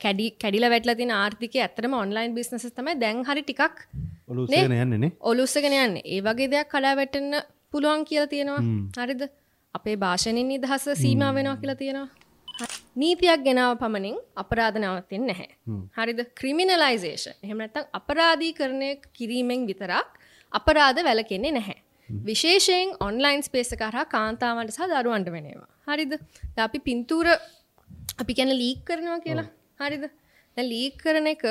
කැඩිලා වැටලා තියෙන ආර්ථිකය ඇත්තටම ඔන්ලයින් බිස්නසස් තමයි දැන් හරි ටිකක් ඔලු උස්සගෙන යන්නේ නේ. ඔලු උස්සගෙන යන්නේ. ඒ වගේ දෙයක් කඩා වැටෙන්න පුළුවන් කියලා තියෙනවා. හරිද? අපේ භාෂණින් නිදහස සීමා වෙනවා කියලා තියෙනවා. නීතියක් ගෙනාව පමණින් අපරාධ නවතින්නේ නැහැ. හරිද? ක්‍රිමිනලයිසේෂන්. එහෙම නැත්නම් අපරාධීකරණය කිරීමෙන් විතරක් අපරාධ වැළකෙන්නේ නැහැ. විශේෂයෙන් ඔන්ලයින් ස්පේස් එක හරහා කාන්තාවන්ට සහ දරුවන්ට වෙන ඒවා. හරිද? දැන් අපි පින්තූර අපි කියන්නේ ලීක් කරනවා කියලා. හරිද? දැන් ලීක් කරන එක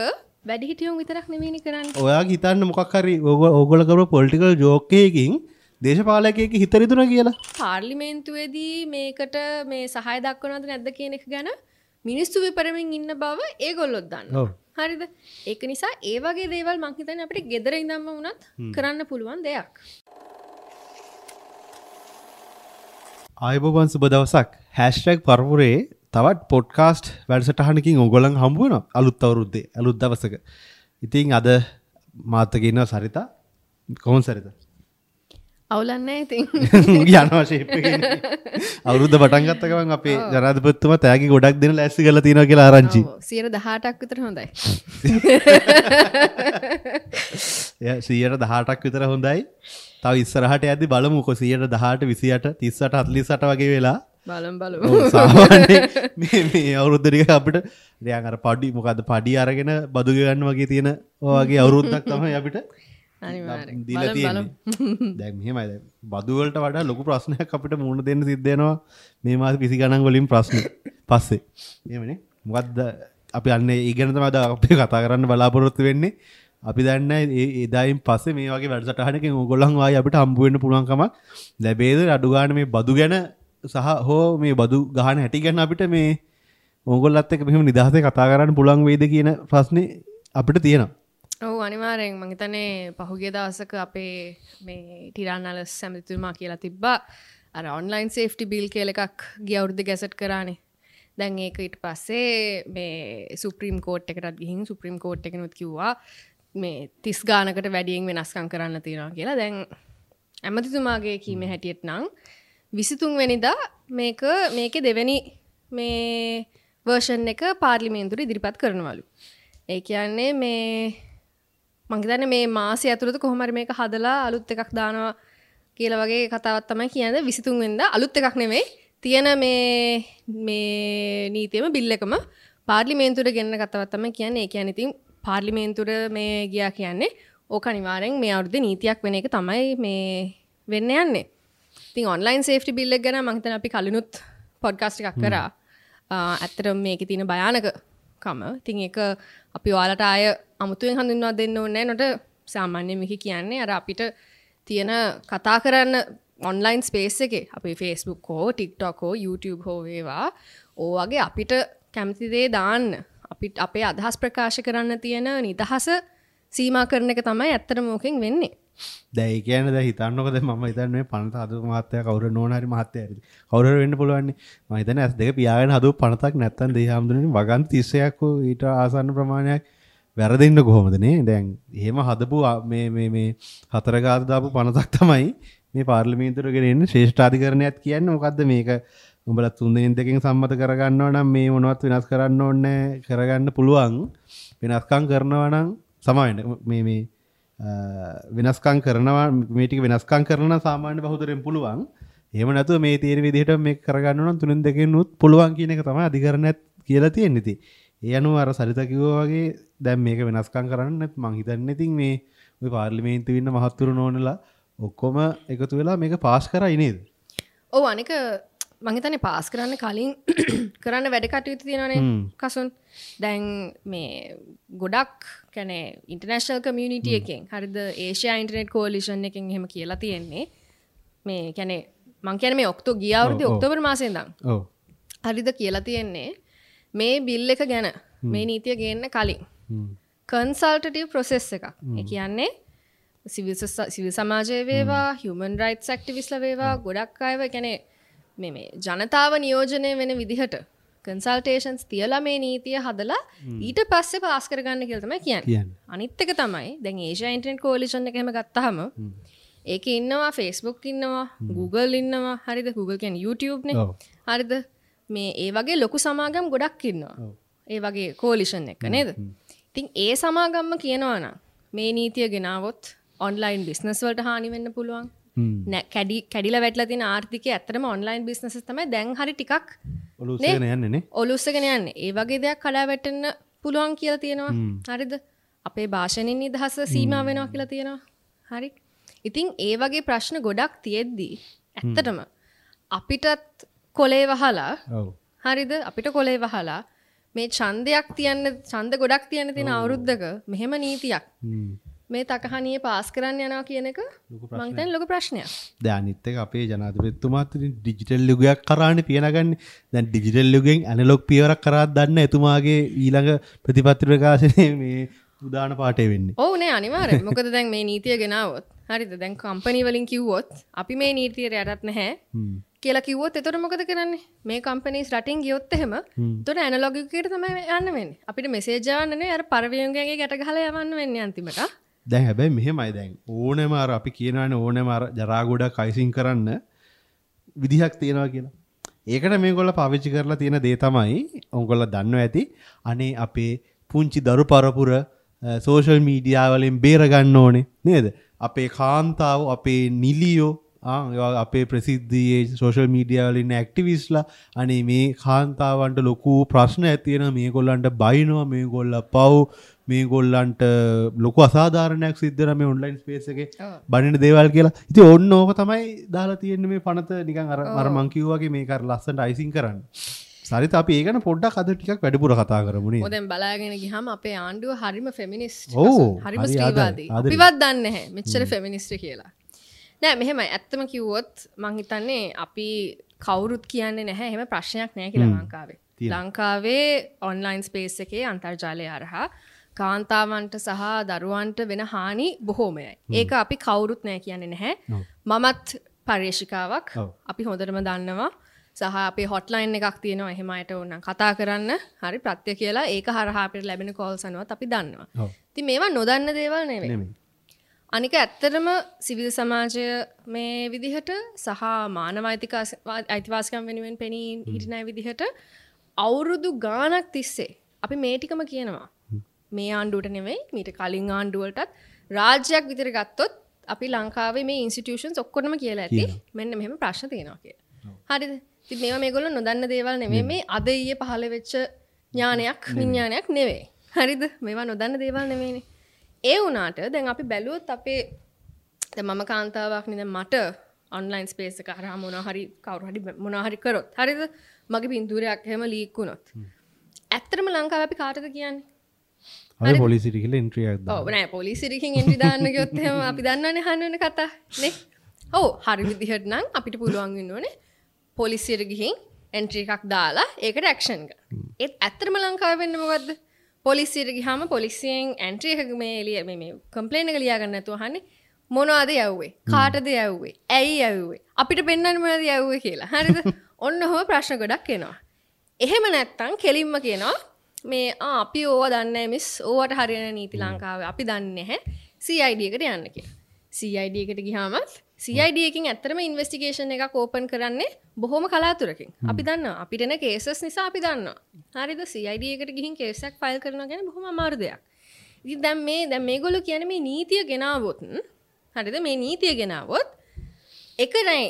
වැඩිහිටියුන් විතරක් නෙමෙයිනේ කරන්නේ. ඔයාගේ හිතන්න මොකක් හරි ඕගොල්ලෝ කරපු පොලිටිකල් ජෝක් එකකින් දේශපාලකයෙක් හිත රිදුනා කියලා. පාර්ලිමේන්තුවේදී මේකට මේ සහාය දක්වනවද නැද්ද කියන එක ගැන මිනිස්සු විපරමින් ඉන්න බව ඒගොල්ලොත් දන්නවා. හරිද? ඒක නිසා ඒ වගේ දේවල් මං හිතන්නේ අපිට ගෙදර ඉඳන්ම වුණත් කරන්න පුළුවන් දෙයක්. ආයුබෝවන් සුබ දවසක්. #පරපුරේ තවත් පොඩ්කාස්ට් වැඩසටහනකින් ඕගොල්ලන් හම්බ වෙනවා අලුත් අවුරුද්දේ අලුත් දවසක. ඉතින් අද මාත් එක්ක ඉන්නවා සරිතා. කොහොමද සරිතා? අවුලක් නැහැ ඉතින්. යනවා ෂේප් එකේ. අවුරුද්ද පටන් ගත්ත ගමන් අපේ ජනාධිපතිතුමා තෑගි ගොඩක් දෙන ලෑස්ති කරලා තියෙනවා කියලා ආරංචි. ඔව් 18ක් විතර හොඳයි. එයා 18ක් විතර හොඳයි. තව ඉස්සරහට යද්දි බලමුකෝ 18 28 38 48 වගේ වෙලා බලමු බලමු. සාමාන්‍යයෙන් මේ මේ අවුරුද්ද ටික අපිට නිකන් අර පඩි මොකද්ද පඩි අරගෙන බදු ගෙවන්න වගේ තියෙන ඔය වගේ අවුරුද්දක් තමයි අපිට අනිවාර්යෙන් දීලා තියෙන්නේ. දැන් මෙහෙමයි, දැන් බදු වලට වඩා ලොකු ප්‍රශ්නයක් අපිට මුහුණ දෙන්න සිද්ධ වෙනවා මේ මාස 20 ගණන් වලින් ප්‍රශ්න පස්සේ. එහෙමනේ. මොකද්ද අපි අන්නේ ඒ ගැන තමයි අද අපි කතා කරන්න බලාපොරොත්තු වෙන්නේ. අපි දන්නේ ඒ එදායින් පස්සේ මේ වගේ වැඩසටහනකින් ඕගොල්ලන් ආයි අපිට හම්බ වෙන්න පුළුවන්කමක් ලැබේද? අඩු ගන්න මේ බදු ගැන සහ හෝ මේ බදු ගහන හැටි ගැන අපිට මේ ඕගොල්ලත් එක්ක මෙහෙම නිදහසේ කතා කරන්න පුළුවන් වෙයිද කියන ප්‍රශ්නේ අපිට තියෙනවා. ඔව් අනිවාර්යෙන්. මං හිතන්නේ පහුගිය දවසක අපේ මේ ටිරාන් අලස් ඇමතිතුමා කියලා තිබ්බා අර ඔන්ලයින් සේෆ්ටි බිල් කියලා එකක් ගිය අවුරුද්දේ ගැසට් කරානේ. දැන් ඒක ඊට පස්සේ මේ සුප්‍රීම කෝට් එකටත් ගිහින් සුප්‍රීම කෝට් එකෙනුත් කිව්වා මේ 30 ගානකට වැඩියෙන් වෙනස්කම් කරන්න තියෙනවා කියලා. දැන් ඇමතිතුමාගේ කීමේ හැටියට නම් 23 වෙනිදා මේකේ දෙවෙනි මේ වර්ෂන් එක පාර්ලිමේන්තුවට ඉදිරිපත් කරනවලු. ඒ කියන්නේ මේ මං හිතන්නේ මේ මාසය ඇතුළත කොහොම හරි මේක හදලා අලුත් එකක් දානවා කියලා වගේ කතාවක් තමයි කියන්නේ. 23 වෙනිදා අලුත් එකක් නෙමෙයි, තියෙන මේ මේ නීතියම බිල් එකම පාර්ලිමේන්තුවට ගෙනන කතාවක් තමයි කියන්නේ. ඒ කියන්නේ ඉතින් පාර්ලිමේන්තුවට මේ ගියා කියන්නේ ඕක අනිවාර්යෙන් මේ අවුරුද්දේ නීතියක් වෙන එක තමයි මේ වෙන්න යන්නේ. ඉතින් ඔන්ලයින් සේෆ්ටි බිල් එක ගැන මං හිතන්නේ අපි කලිනුත් පොඩ්කාස්ට් එකක් කරා. ඇත්තටම මේකේ තියෙන භයානකකම. ඉතින් ඒක අපි ඔයාලට ආය අමුතුවෙන් හඳුන්වා දෙන්න ඕනේ නෑ. නට සාමාන්‍යයෙන් මේක කියන්නේ අර අපිට තියෙන කතා කරන්න ඔන්ලයින් ස්පේස් එකේ අපි Facebook හෝ TikTok හෝ YouTube හෝ වේවා ඕ වගේ අපිට කැමති දේ දාන්න, අපිට අපේ අදහස් ප්‍රකාශ කරන්න තියෙන නිදහස සීමා කරන එක තමයි ඇත්තටම ඕකෙන් වෙන්නේ. දැන් ඒ කියන්නේ දැන් හිතන්නකෝ, දැන් මම හිතන්නේ මේ පනත හදපු මහත්තයා කවුරු නෝන හරි මහත්තයා හරි කවුරු හරි වෙන්න පුළුවන් නේ. මම හිතන්නේ ඇස් දෙක පියාගෙන හදපු පනතක් නැත්තම් දෙහි හාමුදුරනේ වගන්ති 31ක් හෝ ඊට ආසන්න ප්‍රමාණයක් වැරදෙන්න කොහොමද නේ? දැන් එහෙම හදපු මේ මේ මේ හතර ගාත දාපු පනතක් තමයි මේ පාර්ලිමේන්තුවට ගෙන එන්නේ. ශ්‍රේෂ්ඨාධිකරණයත් කියන්නේ මොකද්ද මේක? උඹලා 3-2 සම්මත කරගන්නවා නම් මේ මොනවත් වෙනස් කරන්න ඕනේ කරගන්න පුළුවන්. වෙනස්කම් කරනවා නම් සමාවෙන්න මේ මේ වෙනස්කම් කරනවා මේ ටික වෙනස්කම් කරනවා නම් සාමාන්‍ය බහුතරයෙන් පුළුවන්. එහෙම නැතුව මේ තියෙන විදිහට මේක කරගන්න නම් 3-2 උත් පුළුවන් කියන එක තමයි අධිකරණයත් කියලා තියෙන්නේ. ඉතින් ඒ අනුව අර සරිතා කිව්වා වගේ දැන් මේක වෙනස්කම් කරන්න මං හිතන්නේ ඉතින් මේ ඔය පාර්ලිමේන්තුවේ ඉන්න මහත්තුරු නෝනලා ඔක්කොම එකතු වෙලා මේක පාස් කරයි නේද? ඔව් අනික මං හිතන්නේ පාස් කරන්න කලින් කරන්න වැඩ කටයුතු තියෙනවනේ කසුන්. දැන් මේ ගොඩක් කියන්නේ ඉන්ටර්නැෂනල් කමියුනිටි එකෙන් හරිද, ඒෂියා ඉන්ටර්නෙට් කෝලිෂන් එකෙන් එහෙම කියලා තියෙන්නේ මේ කියන්නේ මං කියන්නේ මේ ගිය අවුරුද්දේ ඔක්තෝබර් මාසේ ඉඳන් ඔව් හරිද කියලා තියෙන්නේ මේ බිල් එක ගැන මේ නීතිය ගේන්න කලින් කන්සල්ටටිව් ප්‍රොසෙස් එකක්. ඒ කියන්නේ සිවිල් සමාජය වේවා, හියුමන් රයිට්ස් ඇක්ටිවිස්ට්ලා වේවා, ගොඩක් අයව කියන්නේ මේ මේ ජනතාව නියෝජනය වෙන විදිහට කන්සල්ටේෂන්ස් තියලා මේ නීතිය හදලා ඊට පස්සේ පාස් කරගන්න කියලා තමයි කියන්නේ. අනිත් එක තමයි දැන් ඒෂියා ඉන්ටර්නෙට් කෝලිෂන් එක එහෙම ගත්තාම ඒකේ ඉන්නවා Facebook ඉන්නවා, Google ඉන්නවා, හරිද? Google කියන්නේ YouTube නේ. හරිද? මේ ඒ වගේ ලොකු සමාගම් ගොඩක් ඉන්නවා. ඒ වගේ කෝලිෂන් එක නේද? ඉතින් ඒ සමාගම්ම කියනවා නම් මේ නීතිය ගෙනාවොත් ඔන්ලයින් බිස්නස් වලට හානි වෙන්න පුළුවන්. නෑ, කැඩිලා වැටලා තියෙන ආර්ථිකය ඇත්තටම ඔන්ලයින් බිස්නසස් තමයි දැන් හරි ටිකක් ඔලු උස්සගෙන යන්නේ නේ. ඔලු උස්සගෙන යන්නේ. ඒ වගේ දෙයක් කඩා වැටෙන්න පුළුවන් කියලා තියෙනවා. හරිද? අපේ භාෂණින් නිදහස සීමා වෙනවා කියලා තියෙනවා. හරි. ඉතින් ඒ වගේ ප්‍රශ්න ගොඩක් තියෙද්දි ඇත්තටම අපිටත් කොලේ වහලා, හරිද? අපිට කොලේ වහලා මේ ඡන්දයක් තියන්න, ඡන්ද ගොඩක් තියන්න තියෙන අවුරුද්දක මෙහෙම නීතියක් මේ තකහනියේ පාස් කරන්න යනවා කියන එක මං හිතන්නේ ලොකු ප්‍රශ්නයක්. දැන් අනිත් එක අපේ ජනාධිපතිතුමාත් ඉතින් ඩිජිටල් යුගයක් කරානේ පියනගන්නේ. දැන් ඩිජිටල් යුගයෙන් ඇනලොග් පියවරක් කරාත් දන්න එතුමාගේ ඊළඟ ප්‍රතිපත්ති ප්‍රකාශනයේ මේ උදාන පාඨය වෙන්නේ. ඔව් නේ, අනිවාර්යෙන්. මොකද දැන් මේ නීතිය ගෙනාවොත්, හරිද? දැන් කම්පැනි වලින් කිව්වොත් අපි මේ නීතියට යටත් නැහැ කියලා කිව්වොත් එතකොට මොකද කරන්නේ? මේ කම්පැනිස් රටින් ගියොත් එහෙම එතකොට ඇනලොග් යුගයකට තමයි යන්න වෙන්නේ. අපිට මෙසේජ් යවන්න නෙවෙයි, අර පරවියුගගේ ගැට ගහලා යවන්න වෙන්නේ අන්තිමට. දැන් හැබැයි මෙහෙමයි, දැන් ඕනෑම අර අපි කියනවානේ ඕනෑම අර ජරා ගොඩක් අයිසින් කරන්න විදිහක් තියෙනවා කියලා. ඒකට මේගොල්ලෝ පාවිච්චි කරලා තියෙන දේ තමයි ඔයගොල්ලෝ දන්නවා ඇති. අනේ අපේ පුංචි දරු පරපුර සෝෂල් මීඩියා වලින් බේර ගන්න ඕනේ නේද? අපේ කාන්තාව, අපේ නිලියෝ, අපේ ප්‍රසිද්ධියේ සෝෂල් මීඩියා වල ඉන්න ඇක්ටිවිස්ට්ලා, අනේ මේ කාන්තාවන්ට ලොකු ප්‍රශ්න ඇති වෙනවා, මේගොල්ලන්ට බයිනවා, මේගොල්ලෝ පව්, මේගොල්ලන්ට ලොකු අසාධාරණයක් සිද්ධ වෙනවා මේ ඔන්ලයින් ස්පේස් එකේ බනින දේවල් කියලා. ඉතින් ඔන්න ඕක තමයි දාලා තියෙන්නේ මේ පනත නිකන් අර අර මං කිව්වා වගේ මේක අර ලස්සනට අයිසින් කරන්න. සරිත අපි ඒ ගැන පොඩ්ඩක් අද ටිකක් වැඩිපුර කතා කරමු නේද? ඔව්, දැන් බලාගෙන ගියාම අපේ ආණ්ඩුව හරිම ෆෙමිනිස්ට්, හරිම ස්ත්‍රීවාදී. අපිවත් දන්නේ නැහැ මෙච්චර ෆෙමිනිස්ට් කියලා. නෑ මෙහෙමයි, ඇත්තම කිව්වොත් මං හිතන්නේ අපි කවුරුත් කියන්නේ නැහැ එහෙම ප්‍රශ්නයක් නෑ කියලා ලංකාවේ. ලංකාවේ ඔන්ලයින් ස්පේස් එකේ අන්තර්ජාලය හරහා කාන්තාවන්ට සහ දරුවන්ට වෙන හානි බොහෝමයයි. ඒක අපි කවුරුත් නෑ කියන්නේ නැහැ. මමත් පර්යේෂිකාවක්, අපි හොඳටම දන්නවා. සහ අපේ හොට්ලයින් එකක් තියෙනවා එහෙම අයට ඕනනම් කතා කරන්න, හරි ප්‍රත්‍ය කියලා. ඒක හරහා අපිට ලැබෙන කෝල්ස් අනුවත් අපි දන්නවා. ඉතින් මේවා නොදන්න දේවල් නෙවෙයි. අනික ඇත්තටම සිවිල් සමාජය මේ විදිහට සහ මානව අයිතිවාසිකම් වෙනුවෙන් පෙනී හිටින අය විදිහට අවුරුදු ගාණක් තිස්සේ අපි මේ ටිකම කියනවා. මේ ආණ්ඩුවට නෙවෙයි, මීට කලින් ආණ්ඩුවලටත් රාජ්‍යයක් විතර ගත්තොත් අපි ලංකාවේ මේ ඉන්ස්ටිටියුෂන්ස් ඔක්කොටම කියලා ඇති මෙන්න මෙහෙම ප්‍රශ්න තියෙනවා කියලා. හරිද? ඉතින් මේවා මේගොල්ලෝ නොදන්න දේවල් නෙවෙයි. මේ අද ඊයේ පහළ වෙච්ච ඥානයක් විඥානයක් නෙවෙයි. හරිද? මේවා නොදන්න දේවල් නෙවෙයිනේ. ඒ වුණාට දැන් අපි බැලුවොත් අපේ දැන් මම කාන්තාවක් නේ, දැන් මට ඔන්ලයින් ස්පේස් එක හරහා මොනවා හරි කවුරු හරි මොනවා හරි කරොත්, හරිද? මගේ පින්තූරයක් එහෙම ලීක් වුණොත් ඇත්තටම ලංකාවේ අපි කාටද කියන්නේ? අපි පොලිසියට ගිහලා එන්ට්‍රි එකක් දාන්න. ඔව් නෑ, පොලිසියට ගිහින් එන්ට්‍රි දාන්න ගියොත් එහෙම අපි දන්නවනේ අහන්න වෙන කතා නේ. ඔව්, හරි විදිහට නම් අපිට පුළුවන් වෙන්න ඕනේ පොලිසියට ගිහින් එන්ට්‍රි එකක් දාලා ඒකට ඇක්ෂන් ගන්න. ඒත් ඇත්තටම ලංකාවේ වෙන්නේ මොකද්ද? පොලිසියට ගියාම පොලිසියෙන් එන්ට්‍රි එක මේ එළිය මේ කම්ප්ලේන් එක ලියා ගන්න නැතුව අහන්නේ මොනවද යව්වේ? කාටද යව්වේ? ඇයි යව්වේ? අපිට පෙන්වන්න මොනවද යව්වේ කියලා. හරිද? ඔන්න ඔහොම ප්‍රශ්න ගොඩක් එනවා. එහෙම නැත්තම් කෙලින්ම කියනවා මේ අපි ඕවා දන්නේ නැහැ මිස්, ඕවට හරියන නීති ලංකාවේ අපි දන්නේ නැහැ, CID එකට යන්න කියලා. CID එකට ගියාම CID එකකින් ඇත්තටම ඉන්වෙස්ටිගේෂන් එකක් ඕපන් කරන්නේ බොහොම කලාතුරකින්. අපි දන්නවා අපිට එන කේසස් නිසා අපි දන්නවා. හරිද? CID එකට ගිහින් කේස් එකක් ෆයිල් කරනවා කියන්නේ බොහොම අමාරු දෙයක්. ඉතින් දැන් මේ දැන් මේගොල්ලෝ කියන්නේ මේ නීතිය ගෙනාවොත්, හරිද? මේ නීතිය ගෙනාවොත් එක නෑ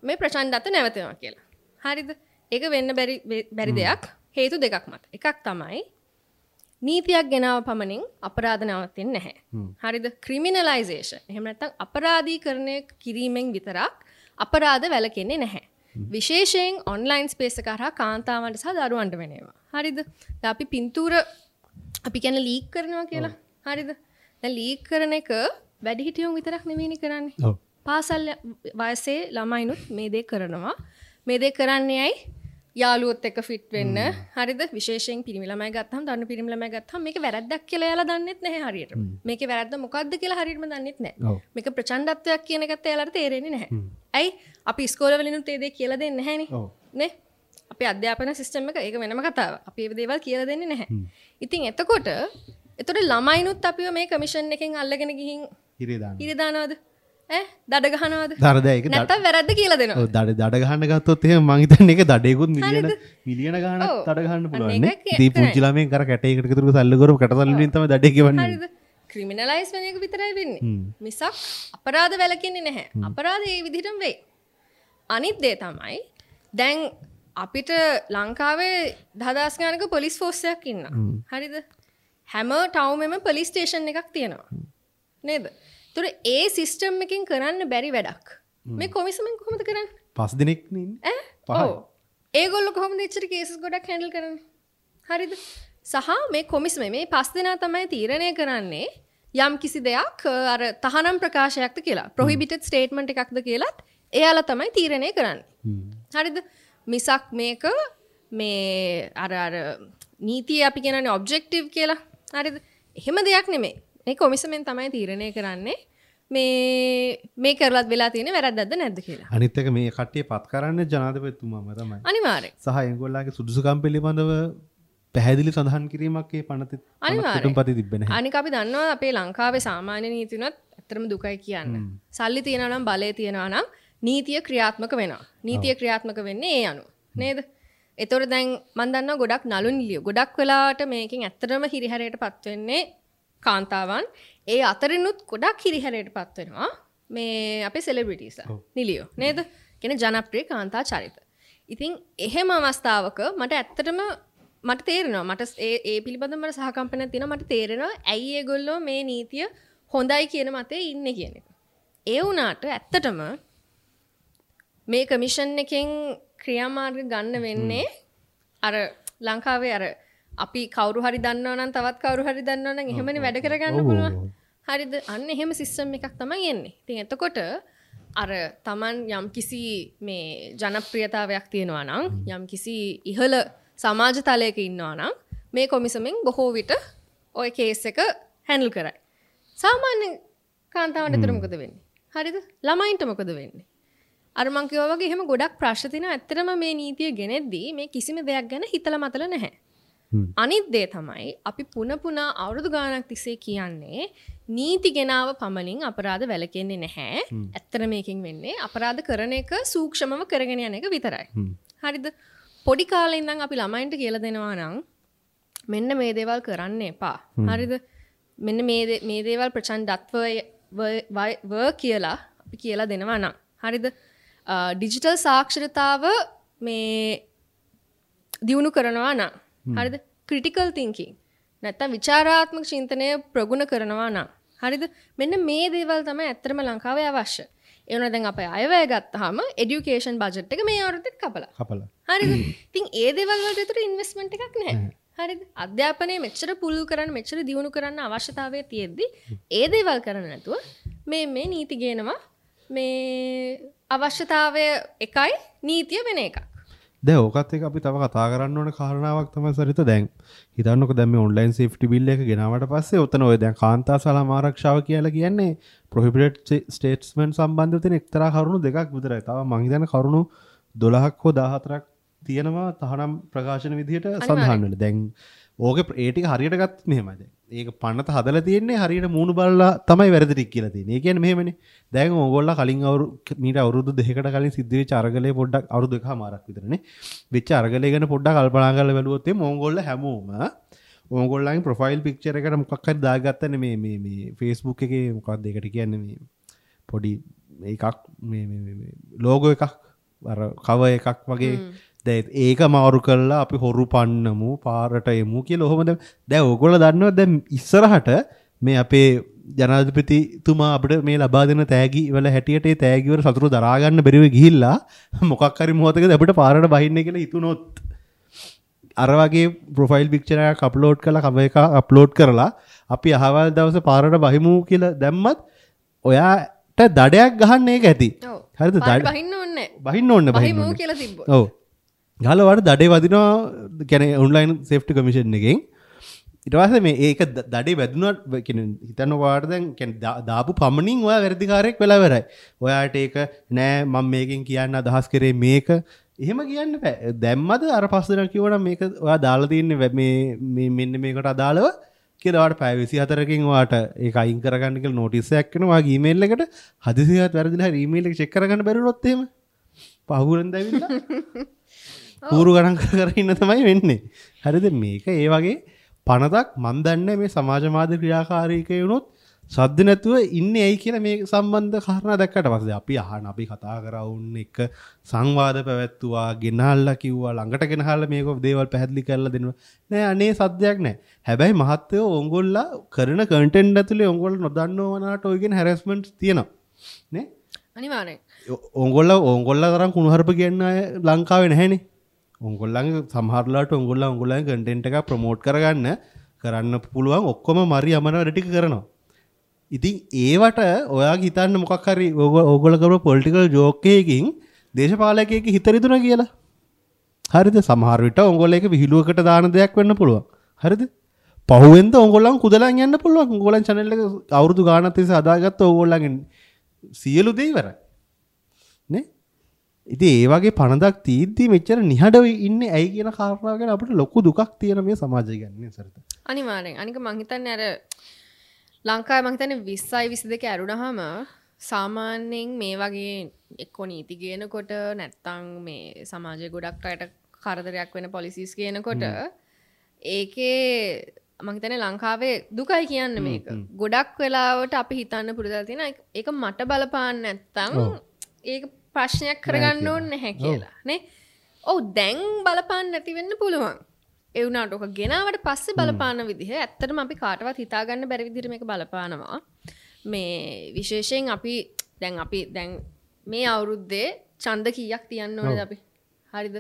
මේ ප්‍රචණ්ඩත්ව නැවතෙනවා කියලා. හරිද? ඒක වෙන්න බැරි දෙයක් හේතු දෙකක් මත. එකක් තමයි නීතියක් ගෙනාව පමණින් අපරාධ නවතින්නේ නැහැ. හරිද? ක්‍රිමිනලයිසේෂන්. එහෙම නැත්නම් අපරාධීකරණය කිරීමෙන් විතරක් අපරාධ වැළකෙන්නේ නැහැ. විශේෂයෙන් ඔන්ලයින් ස්පේස් එක හරහා කාන්තාවන්ට සහ දරුවන්ට වෙන ඒවා. හරිද? දැන් අපි පින්තූර අපි කියන්නේ ලීක් කරනවා කියලා. හරිද? දැන් ලීක් කරන එක වැඩිහිටියොන් විතරක් නෙමෙයිනේ කරන්නේ. ඔව්. පාසල් වයසේ ළමයිනුත් මේ දේ කරනවා. මේ දේ කරන්නේ ඇයි? යාළුවොත් එක්ක ෆිට් වෙන්න. හරිද? විශේෂයෙන් පිරිමි ළමයි ගත්තහම, තරුණ පිරිමි ළමයි ගත්තහම මේක වැරද්දක් කියලා එයාලා දන්නෙත් නැහැ හරියටම. මේකේ වැරද්ද මොකද්ද කියලා හරියටම දන්නෙත් නැහැ. මේක ප්‍රචණ්ඩත්වයක් කියන එකත් එයාලට තේරෙන්නේ නැහැ. ඇයි? අපි ඉස්කෝලේ වලිනුත් ඒ දේ කියලා දෙන්නේ නැහැනේ. නේ? අපේ අධ්‍යාපන සිස්ටම් එක ඒක වෙනම කතාවක්. අපි ඒ දේවල් කියලා දෙන්නේ නැහැ. ඉතින් එතකොට ළමයිනුත් අපිව මේ කමිෂන් එකෙන් අල්ලගෙන ගිහින් හිරේ දානවද? ඈ දඩ ගහනවද? නැත්තම් වැරද්ද කියලා දෙනවා. ඔව් දඩ ගහන්න ගත්තොත් එහෙම මං හිතන්නේ ඒක දඩේකුත් මිලියන ගාණක් දඩ ගහන්න පුළුවන් නේ. ඉතින් පුංචි ළමයෙක් අර කැටයකට විතර සල්ලි කරපු කැට සල්ලි වලින් තමයි දඩේ ගෙවන්නේ. හරිද? ක්‍රිමිනලයිස් වෙන එක විතරයි වෙන්නේ. මිසක් අපරාධ වැළකෙන්නේ නැහැ. අපරාධ ඒ විදිහටම වෙයි. අනිත් දේ තමයි දැන් අපිට ලංකාවේ 10000 ගානක පොලිස් ෆෝස් එකක් ඉන්නවා. හරිද? හැම ටවුන් එකෙම පොලිස් ස්ටේෂන් එකක් තියෙනවා. නේද? ඒතර ඒ සිස්ටම් එකෙන් කරන්න බැරි වැඩක්. මේ කොමිසමෙන් කොහොමද කරන්නේ? පස් දෙනෙක් නේ ඉන්නේ. ඈ? ඔව්. ඒගොල්ලෝ කොහොමද එච්චර කේසස් ගොඩක් හැන්ඩල් කරන්නේ? හරිද? සහ මේ කොමිසමේ මේ පස් දෙනා තමයි තීරණය කරන්නේ යම් කිසි දෙයක් අර තහනම් ප්‍රකාශයක්ද කියලා, ප්‍රොහිබිටඩ් ස්ටේට්මන්ට් එකක්ද කියලාත් එයාලා තමයි තීරණය කරන්නේ. හරිද? මිසක් මේක මේ අර අර නීතිය අපි කියනනේ ඔබ්ජෙක්ටිව් කියලා. හරිද? එහෙම දෙයක් නෙමෙයි. මේ කොමිසමෙන් තමයි තීරණය කරන්නේ මේ මේ කරලත් වෙලා තියෙන වැරද්දක්ද නැද්ද කියලා. අනිත් එක මේ කට්ටිය පත් කරන්නේ ජනාධිපතිතුමාම තමයි. අනිවාර්යයෙන්. සහ ඒගොල්ලන්ගේ සුදුසුකම් පිළිබඳව පැහැදිලි සඳහන් කිරීමක් ඒ පනත අනිවාර්යයෙන් තිබ්බේ නැහැ. අනික අපි දන්නවා අපේ ලංකාවේ සාමාන්‍ය නීති උනත් ඇත්තටම දුකයි කියන්න. සල්ලි තියෙනවා නම් බලය තියෙනවා නම් නීතිය ක්‍රියාත්මක වෙනවා. නීතිය ක්‍රියාත්මක වෙන්නේ ඒ අනුව. නේද? ඒතකොට දැන් මම දන්නවා ගොඩක් නළු නිළියෝ ගොඩක් වෙලාවට මේකෙන් ඇත්තටම හිරිහැරයටපත් වෙන්නේ කාන්තාවන්. ඒ අතරිනුත් ගොඩක් හිරිහැරයටපත් වෙනවා මේ අපේ සෙලිබ්‍රිටිස්ලා නිළියෝ නේද? කියන්නේ ජනප්‍රිය කාන්තා චරිත. ඉතින් එහෙම අවස්ථාවක මට ඇත්තටම මට තේරෙනවා, මට ඒ ඒ පිළිබඳව මට සහකම්පනයක් තියෙනවා. මට තේරෙනවා ඇයි ඒගොල්ලෝ මේ නීතිය හොඳයි කියන මතේ ඉන්නේ කියන එක. ඒ වුණාට ඇත්තටම මේ කමිෂන් එකෙන් ක්‍රියාමාර්ග ගන්න වෙන්නේ අර ලංකාවේ අර අපි කවුරු හරි දන්නවා නම් තවත් කවුරු හරි දන්නවා නම් එහෙමනේ වැඩ කරගන්න පුළුවන්. හරිද? අන්න එහෙම සිස්ටම් එකක් තමයි එන්නේ. ඉතින් එතකොට අර Taman යම්කිසි මේ ජනප්‍රියතාවයක් තියෙනවා නම් යම්කිසි ඉහළ සමාජ තලයක ඉන්නවා නම් මේ කොමිසමෙන් බොහෝ විට ඔය කේස් එක හැන්ඩල් කරයි. සාමාන්‍ය කාන්තාවන්ට විතර මොකද වෙන්නේ? හරිද? ළමයින්ට මොකද වෙන්නේ? අර මං කිව්වා වගේ එහෙම ගොඩක් ප්‍රශ්න තියෙනවා. ඇත්තටම මේ නීතිය ගෙනෙද්දී මේ කිසිම දෙයක් ගැන හිතලා මතලා නැහැ. අනිත් දේ තමයි අපි පුන පුනා අවුරුදු ගාණක් තිස්සේ කියන්නේ නීති ගෙනාව පමණින් අපරාධ වැළකෙන්නේ නැහැ. ඇත්තට මේකෙන් වෙන්නේ අපරාධ කරන එක සූක්ෂමව කරගෙන යන එක විතරයි. හරිද? පොඩි කාලේ ඉඳන් අපි ළමයින්ට කියලා දෙනවා නම් මෙන්න මේ දේවල් කරන්න එපා. හරිද? මෙන්න මේ දේවල් ප්‍රචණ්ඩත්ව ව කියලා අපි කියලා දෙනවා නම්, හරිද? ඩිජිටල් සාක්ෂරතාව මේ දියුණු කරනවා නම්, හරිද? ක්‍රිටිකල් තින්කින් නැත්තම් විචාරාත්මක චින්තනය ප්‍රගුණ කරනවා නම්, හරිද? මෙන්න මේ දේවල් තමයි ඇත්තටම ලංකාවේ අවශ්‍ය. ඒ වුණා දැන් අපේ අයවැය ගත්තාම එඩියුකේෂන් බජට් එක මේ අවුරුද්දෙත් කපලා. හරිද? ඉතින් ඒ දේවල් වලට විතර ඉන්වෙස්ට්මන්ට් එකක් නැහැ. හරිද? අධ්‍යාපනය මෙච්චර පුළුල් කරන්න මෙච්චර දියුණු කරන්න අවශ්‍යතාවය තියෙද්දි ඒ දේවල් කරන්න නැතුව මේ මේ නීති ගේනවා. මේ අවශ්‍යතාවය එකයි නීතිය වෙන එකක්. දැන් ඕකත් එක්ක අපි තව කතා කරන්න ඕන කාරණාවක් තමයි සරිත. දැන් හිතන්නකෝ දැන් මේ ඔන්ලයින් සේෆ්ටි බිල් එක ගෙනාවට පස්සේ ඔතන ඔය දැන් කාන්තා සලම ආරක්ෂාව කියලා කියන්නේ ප්‍රොහිබිටඩ් ස්ටේට්මන්ට් සම්බන්ධව තියෙන එක්තරා කරුණු දෙකක් විතරයි. තව මං හිතන්නේ කරුණු 12ක් හෝ 14ක් තියෙනවා තහනම් ප්‍රකාශන විදිහට සඳහන් වෙන. දැන් ඕකේ ඒ ටික හරියට ගත්තොත් මෙහෙමයි. දැන් ඒක පනත හදලා තියෙන්නේ හරියට මූණු බලලා තමයි වැරදි ටික කියලා තියෙන්නේ. ඒ කියන්නේ මෙහෙමනේ. දැන් ඕගොල්ලෝ කලින් මීට අවුරුදු දෙකකට කලින් සිද්ධ වෙච්ච අරගලේ පොඩ්ඩක් අවුරුදු එකමාරක් විතරනේ වෙච්ච අරගලේ ගැන පොඩ්ඩක් කල්පනා කරලා බැලුවොත් එimhe ඕගොල්ලෝ හැමෝම ඕගොල්ලන්ගේ ප්‍රොෆයිල් පික්චර් එකට මොකක් හරි දාගත්තනේ මේ මේ මේ Facebook එකේ මොකක්ද ඒකට කියන්නේ මේ පොඩි එකක් මේ මේ මේ ලෝගෝ එකක් අර කවර් එකක් වගේ. දැන් ඒක මාරු කරලා අපි හොරු පන්නමු පාරට එමු කියලා ඔහොම දැන් ඕගොල්ලෝ දන්නවා දැන් ඉස්සරහට මේ අපේ ජනාධිපතිතුමා අපිට මේ ලබා දෙන තෑගි වල හැටියට ඒ තෑගි වල සතුරු දරා ගන්න බැරිව ගිහිල්ලා මොකක් හරි මොහොතකදී අපිට පාරට බහින්න කියලා හිතුනොත් අර වගේ ප්‍රොෆයිල් පික්චර් එකක් අප්ලෝඩ් කරලා කවර් එකක් අප්ලෝඩ් කරලා අපි අහවල් දවසේ පාරට බහිමු කියලා දැම්මත් ඔයාට දඩයක් ගහන්න ඒක ඇති. හරිද? දඩ බහින්න ඕනේ. බහින්න ඕනේ බහිමු කියලා තිබ්බොත්. ඔව්. ගහලා වාට දඩේ වදිනවා කියන්නේ ඔන්ලයින් සේෆ්ටි කමිෂන් එකෙන්. ඊට පස්සේ මේ ඒක දඩේ වැදුනා කියන්නේ හිතන්නකෝ ඔයාට දැන් කියන්නේ දාපු පමණින් ඔයා වැරදිකාරයෙක් වෙලා ඉවරයි. ඔයාට ඒක නෑ මම මේකෙන් කියන්න අදහස් කරේ මේක එහෙම කියන්න බෑ. දැම්මද අර පස් දෙනා කිව්වනම් මේක ඔයා දාලා තින්නේ මේ මේ මෙන්න මේකට අදාළව කියලා ඔයාට පැය 24කින් ඔයාට ඒක අයින් කරගන්න කියලා නෝටිස් එකක් එනවා ඔයාගේ ඊමේල් එකට. හදිසියවත් වැරදිලා හරි ඊමේල් එක චෙක් කරගන්න බැරි වුණොත් එහෙම පහුවෙන් දැවිලා කූරු ගණන් කර කර ඉන්න තමයි වෙන්නේ. හරිද? මේක ඒ වගේ පනතක් මන් දන්නේ මේ සමාජ මාධ්‍ය ක්‍රියාකාරීකේ වුණොත් සද්ද නැතුව ඉන්නේ ඇයි කියලා මේ සම්බන්ධ කාරණා දැක්කට පස්සේ අපි අහන අපි කතා කරා උන් එක්ක සංවාද පැවැත්තුවා, ගෙනහල්ලා කිව්වා, ළඟට ගෙනහල්ලා මේක දේවල් පැහැදිලි කරලා දෙනවා. නෑ අනේ සද්දයක් නෑ. හැබැයි මහත්තයෝ ඕගොල්ලෝ කරන කන්ටෙන්ට් ඇතුලේ ඕගොල්ලෝ නොදන්නව වනාට ඔය කියන හැරස්මන්ට්ස් තියෙනවා නේ. අනිවාර්යෙන්. ඕගොල්ලෝ ඕගොල්ලෝ තරම් කුණුහරුප කියන අය ලංකාවේ නැහැනේ. ඕගොල්ලන්ගේ සමහරලාට ඕගොල්ලෝ ඕගොල්ලන්ගේ කන්ටෙන්ට් එක ප්‍රොමෝට් කරගන්න කරන්න පුළුවන් ඔක්කොම මරි අමන වැඩ ටික කරනවා. ඉතින් ඒවට ඔයාගේ හිතන්න මොකක් හරි ඕගොල්ලෝ කරපු පොලිටිකල් ජෝක් එකකින් දේශපාලකයෙක්ගේ හිත රිදුනා කියලා. හරිද? සමහර විට ඕගොල්ලෝ ඒක විහිළුවකට දාන දෙයක් වෙන්න පුළුවන්. හරිද? පහුවෙන්ද ඕගොල්ලන් කුදලන් යන්න පුළුවන්. ඕගොල්ලන් චැනල් එක අවුරුදු ගාණක් තිස්සේ හදාගත්ත ඕගොල්ලන්ගේ සියලු දේ ඉවරයි. නේ? ඉතින් ඒ වගේ පනදක් තීද්දි මෙච්චර නිහඬව ඉන්නේ ඇයි කියන කාරණාව ගැන අපිට ලොකු දුකක් තියෙන මේ සමාජය ගැන නේ සරිත. අනිවාර්යෙන්. අනික මං හිතන්නේ අර ලංකාවේ මං හිතන්නේ 20යි 22 ඇරුණාම සාමාන්‍යයෙන් මේ වගේ එක්කෝ නීති ගේනකොට නැත්තම් මේ සමාජයේ ගොඩක් අයට කරදරයක් වෙන පොලිසිස් ගේනකොට ඒකේ මං හිතන්නේ ලංකාවේ දුකයි කියන්නේ මේක. ගොඩක් වෙලාවට අපි හිතන්න පුරුදුලා තියෙන ඒක මට බලපාන්න නැත්තම් ඒක ප්‍රශ්නයක් කරගන්න ඕනේ නැහැ කියලා නේ. ඔව් දැන් බලපාන්න නැති වෙන්න පුළුවන්. ඒ වුණාට ඔක ගෙනාවට පස්සේ බලපාන විදිහ ඇත්තටම අපි කාටවත් හිතා ගන්න බැරි විදිහට මේක බලපානවා. මේ විශේෂයෙන් අපි දැන් මේ අවුරුද්දේ ඡන්ද කීයක් තියන්න ඕනේද අපි? හරිද?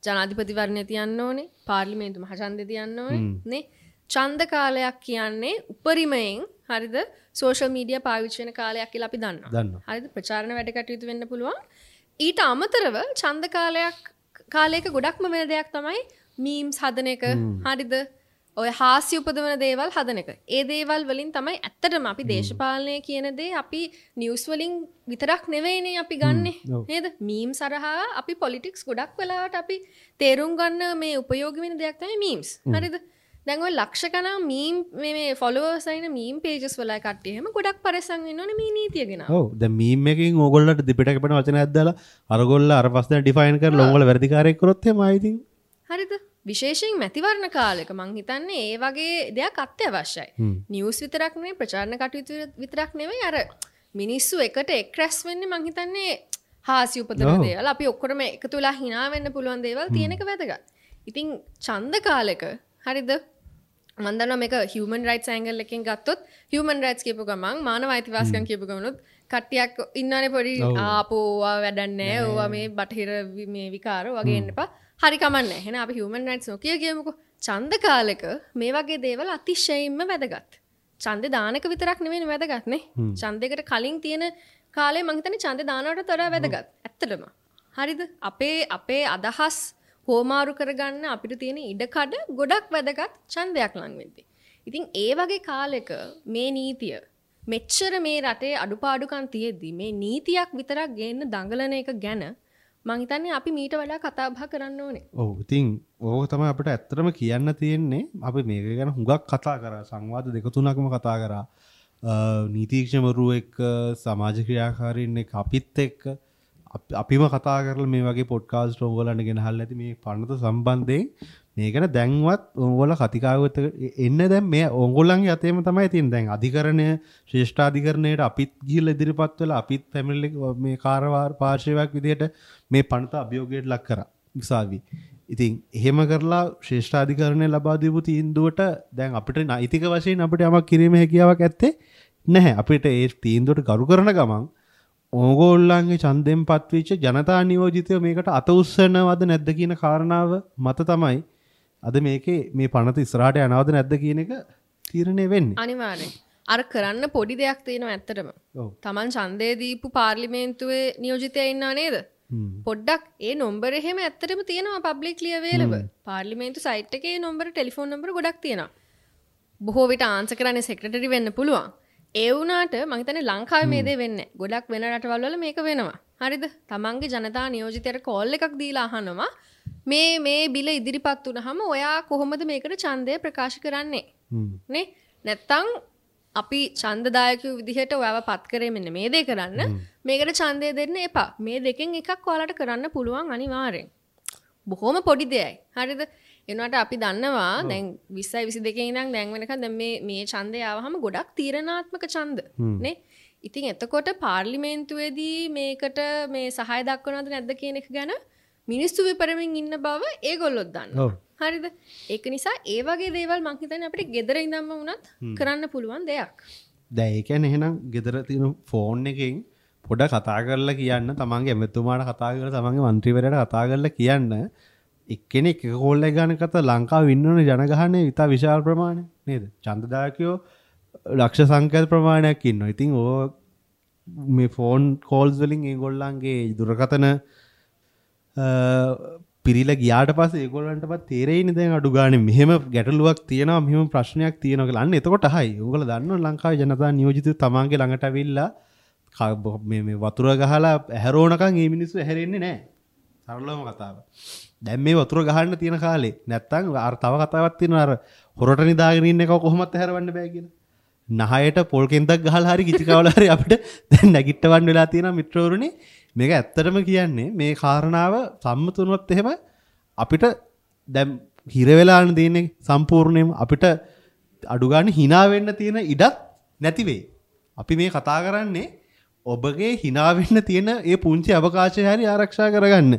ජනාධිපතිවරණය තියන්න ඕනේ, පාර්ලිමේන්තු මහ ඡන්දය තියන්න ඕනේ නේ. ඡන්ද කාලයක් කියන්නේ උපරිමයෙන් හරිද සෝෂල් මීඩියා පාවිච්චි වෙන කාලයක් කියලා අපි දන්නවා. හරිද? ප්‍රචාරණ වැඩ කටයුතු වෙන්න පුළුවන්. ඊට අමතරව ඡන්ද කාලයක ගොඩක්ම වෙන දෙයක් තමයි මීම්ස් හදන එක. හරිද? ඔය හාස්‍ය උපදවන දේවල් හදන එක. ඒ දේවල් වලින් තමයි ඇත්තටම අපි දේශපාලනය කියන දේ අපි නිවුස් වලින් විතරක් නෙවෙයිනේ අපි ගන්නෙ නේද? මීම්ස් හරහා අපි පොලිටික්ස් ගොඩක් වෙලාවට අපි තේරුම් ගන්න මේ උපයෝගී වෙන දෙයක් තමයි මීම්ස්. හරිද? දැන් ඔය ලක්ෂ ගණන් මීම් මේ ෆොලෝවර්ස් අයින මීම් පේජස් වල කට්ටිය එහෙම ගොඩක් පරිස්සම් වෙන්න ඕනේ මේ නීතිය ගැන. ඔව් දැන් මීම් එකකින් ඕගොල්ලන්ට දෙපිට කැපෙන වචනයක් දාලා අරගොල්ල අර පස් දෙනා ඩිෆයින් කරලා ඕගොල්ලෝ වැරදිකාරයෙක් කරොත් එහෙම ආයි ඉතින් හරිද? විශේෂයෙන් මැතිවරණ කාලෙක මං හිතන්නේ ඒ වගේ දෙයක් අත්‍යවශ්‍යයි. නිවුස් විතරක් නෙවෙයි, ප්‍රචාරණ කටයුතු විතරක් නෙවෙයි, අර මිනිස්සු එකට එක් රැස් වෙන්නේ මං හිතන්නේ හාස්‍ය උපදවන දේවල්, අපි ඔක්කොම එකතු වෙලා hina වෙන්න පුළුවන් දේවල් තියෙන එක වැදගත්. ඉතින් ඡන්ද කාලෙක හරිද? මං දන්නවා මේක හියුමන් රයිට්ස් ඇන්ගල් එකෙන් ගත්තොත් හියුමන් රයිට්ස් කියපු ගමන් මානව අයිතිවාසිකම් කියපු ගමනොත් කට්ටියක් ඉන්නවනේ පොඩි ආපෝ ඕවා වැඩක් නෑ, ඕවා මේ බටහිර මේ විකාර වගේ එන්න එපා. හරි කමන්නේ. එහෙනම් අපි හියුමන් රයිට්ස් නොකිය කියමුකෝ. ඡන්ද කාලෙක මේ වගේ දේවල් අතිශයින්ම වැදගත්. ඡන්දේ දාන එක විතරක් නෙවෙයි වැදගත් නේ. ඡන්දයකට කලින් තියෙන කාලේ මං හිතන්නේ ඡන්දේ දානවට වඩා වැදගත්. ඇත්තටම. හරිද? අපේ අදහස් හෝමාරු කරගන්න අපිට තියෙන ඉඩකඩ ගොඩක් වැදගත් ඡන්දයක් ලං වෙද්දී. ඉතින් ඒ වගේ කාලෙක මේ නීතිය මෙච්චර මේ රටේ අඩුපාඩුකම් තියෙද්දි මේ නීතියක් විතරක් ගේන්න දඟලන එක ගැන මං හිතන්නේ අපි මීට වඩා කතා බහ කරන්න ඕනේ. ඔව් ඉතින් ඕක තමයි අපිට ඇත්තටම කියන්න තියෙන්නේ. අපි මේක ගැන හුඟක් කතා කරා, සංවාද දෙක තුනක්ම කතා කරා. නීතිඥවරු එක්ක, සමාජ ක්‍රියාකාරීන් එක්ක, අපිත් එක්ක අපිම කතා කරලා මේ වගේ පොඩ්කාස්ට් ඕගොල්ලන්ට ගෙනහල්ලා ඇති මේ පනත සම්බන්ධයෙන්. මේ ගැන දැන්වත් ඕගොල්ලෝ කතිකාවත එන්න දැන් මේ ඕගොල්ලන්ගේ අතේම තමයි තියෙන්නේ. දැන් අධිකරණය, ශ්‍රේෂ්ඨාධිකරණයට අපිත් ගිහිල්ලා ඉදිරිපත් වෙලා අපිත් ෆැමිලි මේ කාරවාර පාර්ශවයක් විදිහට මේ පනත අභියෝගයට ලක් කරා උසාවි. ඉතින් එහෙම කරලා ශ්‍රේෂ්ඨාධිකරණය ලබා දීපු තීන්දුවට දැන් අපිට නෛතික වශයෙන් අපිට යමක් කිරීමේ හැකියාවක් ඇත්තේ නැහැ. අපිට ඒ තීන්දුවට ගරු කරන ගමන් ඕගොල්ලන්ගේ ඡන්දයෙන් පත්වෙච්ච ජනතා නියෝජිතයෝ මේකට අත උස්සනවද නැද්ද කියන කාරණාව මත තමයි අද මේකේ මේ පනත ඉස්සරහට යනවද නැද්ද කියන එක තීරණය වෙන්නේ. අනිවාර්යෙන්. අර කරන්න පොඩි දෙයක් තියෙනවා ඇත්තටම. තමන් ඡන්දය දීපු පාර්ලිමේන්තුවේ නියෝජිතයා ඉන්නා නේද? පොඩ්ඩක් ඒ නම්බර එහෙම ඇත්තටම තියෙනවා පබ්ලික්ලි අවේලබල්. පාර්ලිමේන්තු සයිට් එකේ ඒ නම්බර, ටෙලිෆෝන් නම්බර ගොඩක් තියෙනවා. බොහෝ විට ආන්සර් කරන්නේ සෙක්‍රටරි වෙන්න පුළුවන්. ඒ වුණාට මං හිතන්නේ ලංකාවේ මේ දේ වෙන්නේ නැහැ. ගොඩක් වෙන රටවල් වල මේක වෙනවා. හරිද? තමන්ගේ ජනතා නියෝජිතයට කෝල් එකක් දීලා අහනවා මේ මේ බිල ඉදිරිපත් වුණාම ඔයා කොහොමද මේකට ඡන්දය ප්‍රකාශ කරන්නේ? නේ? නැත්තම් අපි ඡන්දදායකයෝ විදිහට ඔයාව පත් කරේ මෙන්න මේ දේ කරන්න. මේකට ඡන්දය දෙන්න එපා. මේ දෙකෙන් එකක් ඔයාලට කරන්න පුළුවන් අනිවාර්යෙන්. බොහොම පොඩි දෙයයි. හරිද? ඒ වුණාට අපි දන්නවා දැන් 20 22 ඉඳන් දැන් වෙනකන් දැන් මේ මේ ඡන්දය ආවහම ගොඩක් තීරණාත්මක ඡන්ද නේ. ඉතින් එතකොට පාර්ලිමේන්තුවේදී මේකට මේ සහාය දක්වනවද නැද්ද කියන එක ගැන මිනිස්සු විපරමින් ඉන්න බව ඒගොල්ලොත් දන්නවා. හරිද? ඒක නිසා ඒ වගේ දේවල් මං හිතන්නේ අපිට ගෙදර ඉඳන්ම වුණත් කරන්න පුළුවන් දෙයක්. දැන් ඒ කියන්නේ එහෙනම් ගෙදර තියෙන ෆෝන් එකෙන් පොඩ කතා කරලා කියන්න, තමන්ගේ ඇමතුමාට කතා කරලා, තමන්ගේ මන්ත්‍රීවරයාට කතා කරලා කියන්න, එක්කෙනෙක් එක කෝල් එක ගන්න කතා ලංකාවේ ඉන්නවනේ ජනගහනය ඉතා විශාල ප්‍රමාණයක් නේද? ඡන්දදායකයෝ ලක්ෂ සංඛ්‍යාත ප්‍රමාණයක් ඉන්නවා. ඉතින් ඕ මේ ෆෝන් කෝල්ස් වලින් ඒගොල්ලන්ගේ දුරකථන පිරිලා ගියාට පස්සේ ඒගොල්ලන්ටපත් තේරෙයිනේ දැන් අඩු ගානේ මෙහෙම ගැටලුවක් තියෙනවා, මෙහෙම ප්‍රශ්නයක් තියෙනවා කියලා. අන්න එතකොට අහයි. ඕගොල්ලෝ දන්නවනේ ලංකාවේ ජනතා නියෝජිතව තමන්ගේ ළඟට ඇවිල්ලා මේ මේ වතුර ගහලා ඇහැරෝනකන් මේ මිනිස්සු ඇහැරෙන්නේ නැහැ. සරලවම කතාව. දැන් මේ වතුර ගහන්න තියෙන කාලේ නැත්තම් අර තව කතාවක් තියෙනවා, අර හොරට නිදාගෙන ඉන්න එක කොහොමත් ඇහැරවන්න බෑ කියලා. නහයට පොල් කෙන්දක් ගහලා හරි කිචි කවලා හරි අපිට දැන් නැගිටවන්න වෙලා තියෙනවා මිත්‍රවරුනි. මේක ඇත්තටම කියන්නේ මේ කාරණාව සම්මත වුණොත් එහෙම අපිට දැන් හිර වෙලාන තියෙන්නේ සම්පූර්ණයෙන්ම අපිට අඩු ගන්න hina වෙන්න තියෙන ඉඩක් නැති වෙයි. අපි මේ කතා කරන්නේ ඔබගේ hina වෙන්න තියෙන ඒ පුංචි අවකාශය හරි ආරක්ෂා කරගන්න.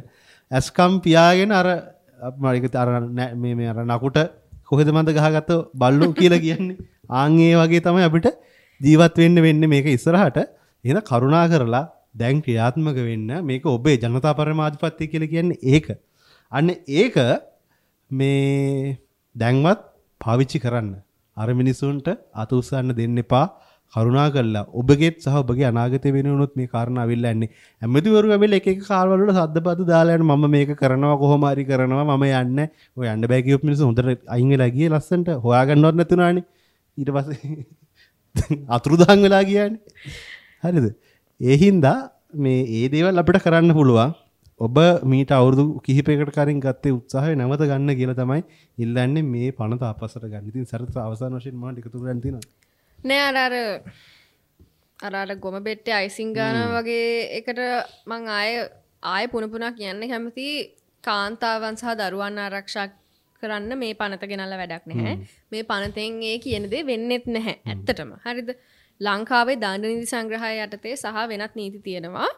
ඇස්කම් පියාගෙන අර අර මේ මේ අර නකුට කොහෙද මන්ද ගහගත්ත බල්ලෝ කියලා කියන්නේ. ආන් ඒ වගේ තමයි අපිට ජීවත් වෙන්න වෙන්නේ මේක ඉස්සරහට. එහෙනම් කරුණා කරලා දැන් ක්‍රියාත්මක වෙන්න. මේක ඔබේ ජනතා පරමාධිපත්‍ය කියලා කියන්නේ ඒක. අන්න ඒක මේ දැන්වත් පාවිච්චි කරන්න. අර මිනිසුන්ට අත උස්සන්න දෙන්න එපා. කරුණා කරලා ඔබගේත් සහ ඔබගේ අනාගතය වෙනුවනොත් මේ කාරණා අවිල්ලා යන්නේ. ඇමතිවරු ඇවිල්ලා එක එක කාර්වල වල සද්දපද දාලා යන මම මේක කරනවා කොහොම හරි කරනවා මම යන්නේ. ඔය යන්න බෑ කියපු මිනිස්සු හොඳට අයින් වෙලා ගියේ ලස්සනට හොයාගන්නවත් නැතුණානේ. ඊට පස්සේ අතුරුදහන් වෙලා ගියානේ. හරිද? ඒ හින්දා මේ ඒ දේවල් අපිට කරන්න පුළුවන්. ඔබ මීට අවුරුදු කිහිපයකට කලින් ගත්තේ උත්සාහය නැවත ගන්න කියලා තමයි ඉල්ලන්නේ මේ පනත අපසට ගන්න. ඉතින් සරත් අවසාන වශයෙන් මම එකතු කරන්න තියෙනවා. නෑ අර අර අර අර ගොම බෙට්ටේ අයිසිං ගානවා වගේ එකට මං ආය පුන පුනා කියන්න කැමති කාන්තාවන් සහ දරුවන් ආරක්ෂා කරන්න මේ පනත ගෙනල්ලා වැඩක් නැහැ. මේ පනතෙන් ඒ කියන දේ වෙන්නෙත් නැහැ ඇත්තටම. හරිද? ලංකාවේ දඬ නීති සංග්‍රහය යටතේ සහ වෙනත් නීති තියෙනවා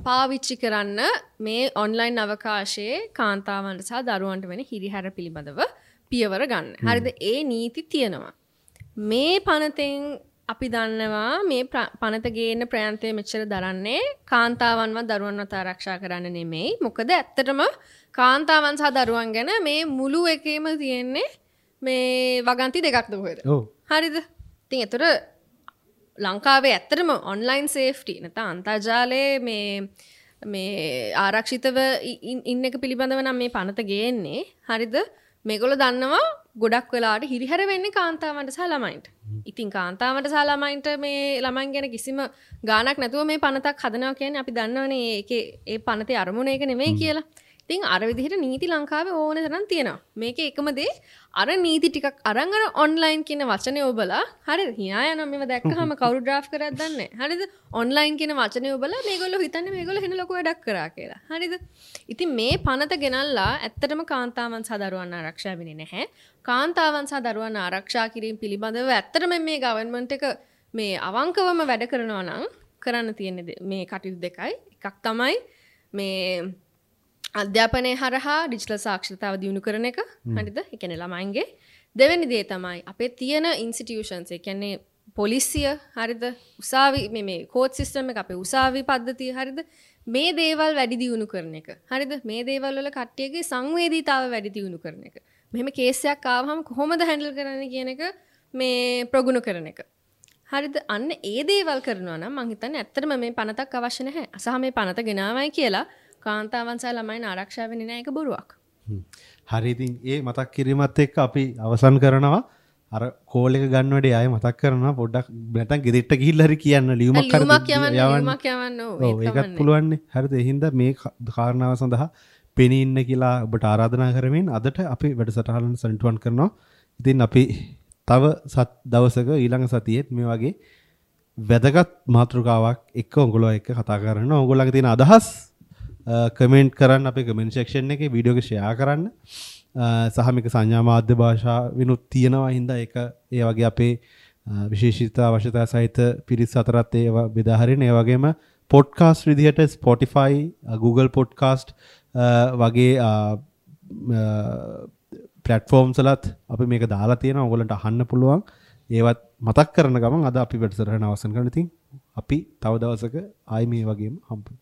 පාවිච්චි කරන්න මේ ඔන්ලයින් අවකාශයේ කාන්තාවන්ට සහ දරුවන්ට වෙන හිරිහැර පිළිබඳව පියවර ගන්න. හරිද? ඒ නීති තියෙනවා. මේ පනතෙන් අපි දන්නවා මේ පනත ගේන්න ප්‍රයන්තය මෙච්චර දරන්නේ කාන්තාවන්වත් දරුවන්වත් ආරක්ෂා කරන්න නෙමෙයි. මොකද ඇත්තටම කාන්තාවන් සහ දරුවන් ගැන මේ මුළු එකේම තියෙන්නේ මේ වගන්ති දෙකක්ද කොහෙද? ඔව්. හරිද? ඉතින් ඒතර ලංකාවේ ඇත්තටම ඔන්ලයින් සේෆ්ටි නැත්නම් අන්තර්ජාලයේ මේ මේ ආරක්ෂිතව ඉන්න එක පිළිබඳව නම් මේ පනත ගේන්නේ. හරිද? මේගොල්ලෝ දන්නවා ගොඩක් වෙලාවට හිරිහැර වෙන්නේ කාන්තාවන්ට සහ ළමයින්ට. ඉතින් කාන්තාවන්ට සහ ළමයින්ට මේ ළමයින් ගැන කිසිම ගාණක් නැතුව මේ පනතක් හදනවා කියන්නේ අපි දන්නවනේ ඒකේ ඒ පනතේ අරමුණ ඒක නෙමෙයි කියලා. ඉතින් අර විදිහට නීති ලංකාවේ ඕන තරම් තියෙනවා. මේකේ එකම දේ අර නීති ටිකක් අරන් අර ඔන්ලයින් කියන වචනේ ඔබලා හරිද? හිනා යනවා මේව දැක්කහම කවුරු ඩ්‍රාෆ්ට් කරාද දන්නේ නැහැ. හරිද? ඔන්ලයින් කියන වචනේ ඔබලා මේගොල්ලෝ හිතන්නේ මේගොල්ලෝ වෙන ලොකු වැඩක් කරා කියලා. හරිද? ඉතින් මේ පනත ගෙනල්ලා ඇත්තටම කාන්තාවන් සහ දරුවන් ආරක්ෂා වෙන්නේ නැහැ. කාන්තාවන් සහ දරුවන් ආරක්ෂා කිරීම පිළිබඳව ඇත්තටම මේ ගවර්න්මන්ට් එක මේ අවංකවම වැඩ කරනවා නම් කරන්න තියෙන මේ කටයුතු දෙකයි. එකක් තමයි මේ අධ්‍යාපනය හරහා ඩිජිටල් සාක්ෂරතාව දියුණු කරන එක. හරිද? ඒ කියන්නේ ළමයින්ගේ. දෙවෙනි දේ තමයි අපේ තියෙන ඉන්ස්ටිටියුෂන්ස්, ඒ කියන්නේ පොලිසිය, හරිද? උසාවි මේ මේ කෝට් සිස්ටම් එක, අපේ උසාවි පද්ධතිය, හරිද? මේ දේවල් වැඩි දියුණු කරන එක. හරිද? මේ දේවල් වල කට්ටියගේ සංවේදීතාව වැඩි දියුණු කරන එක. මෙහෙම කේස් එකක් ආවහම කොහොමද හැන්ඩල් කරන්නේ කියන එක මේ ප්‍රගුණ කරන එක. හරිද? අන්න ඒ දේවල් කරනවා නම් මං හිතන්නේ ඇත්තටම මේ පනතක් අවශ්‍ය නැහැ. සහ මේ පනත ගෙනාවයි කියලා කාන්තාවන් සහ ළමයින් ආරක්ෂා වෙන්නේ නැහැ, ඒක බොරුවක්. හරි, ඉතින් ඒ මතක් කිරීමත් එක්ක අපි අවසන් කරනවා. අර කෝල් එක ගන්න වැඩේ ආයෙ මතක් කරනවා පොඩ්ඩක්, නැත්නම් ගෙදරට ගිහිල්ලා හරි කියන්න, ලියුමක් හරි යවන්න. ඔව්, ඒකත් පුළුවන්නේ. හරිද? ඒ හින්දා මේ කාරණාව සඳහා පෙනී ඉන්න කියලා ඔබට ආරාධනා කරමින් අදට අපි වැඩසටහන සනිටුවන් කරනවා. ඉතින් අපි තව දවසක ඊළඟ සතියේත් මේ වගේ වැදගත් මාතෘකාවක් එක්ක ඔයගොල්ලෝ එක්ක කතා කරනවා. ඔයගොල්ලන්ගේ තියෙන අදහස් කමෙන්ට් කරන්න අපේ කමෙන්ට් සෙක්ෂන් එකේ, වීඩියෝ එක ෂෙයා කරන්න. සහ මේක සංඥා මාධ්‍ය භාෂාවිනුත් තියෙනවා හින්දා ඒක ඒ වගේ අපේ විශේෂිත අවශ්‍යතා සහිත පිරිස් අතරත් ඒවා බෙදා හරින. ඒ වගේම පොඩ්කාස්ට් විදිහට Spotify, Google podcast වගේ ප්ලැට්ෆෝම්ස් වලත් අපි මේක දාලා තියෙනවා. ඔයගොල්ලන්ට අහන්න පුළුවන්. ඒවත් මතක් කරන ගමන් අද අපි වැඩසටහන අවසන් කරනවා. ඉතින් අපි තව දවසක ආයි මේ වගේම හම්බ වෙමු.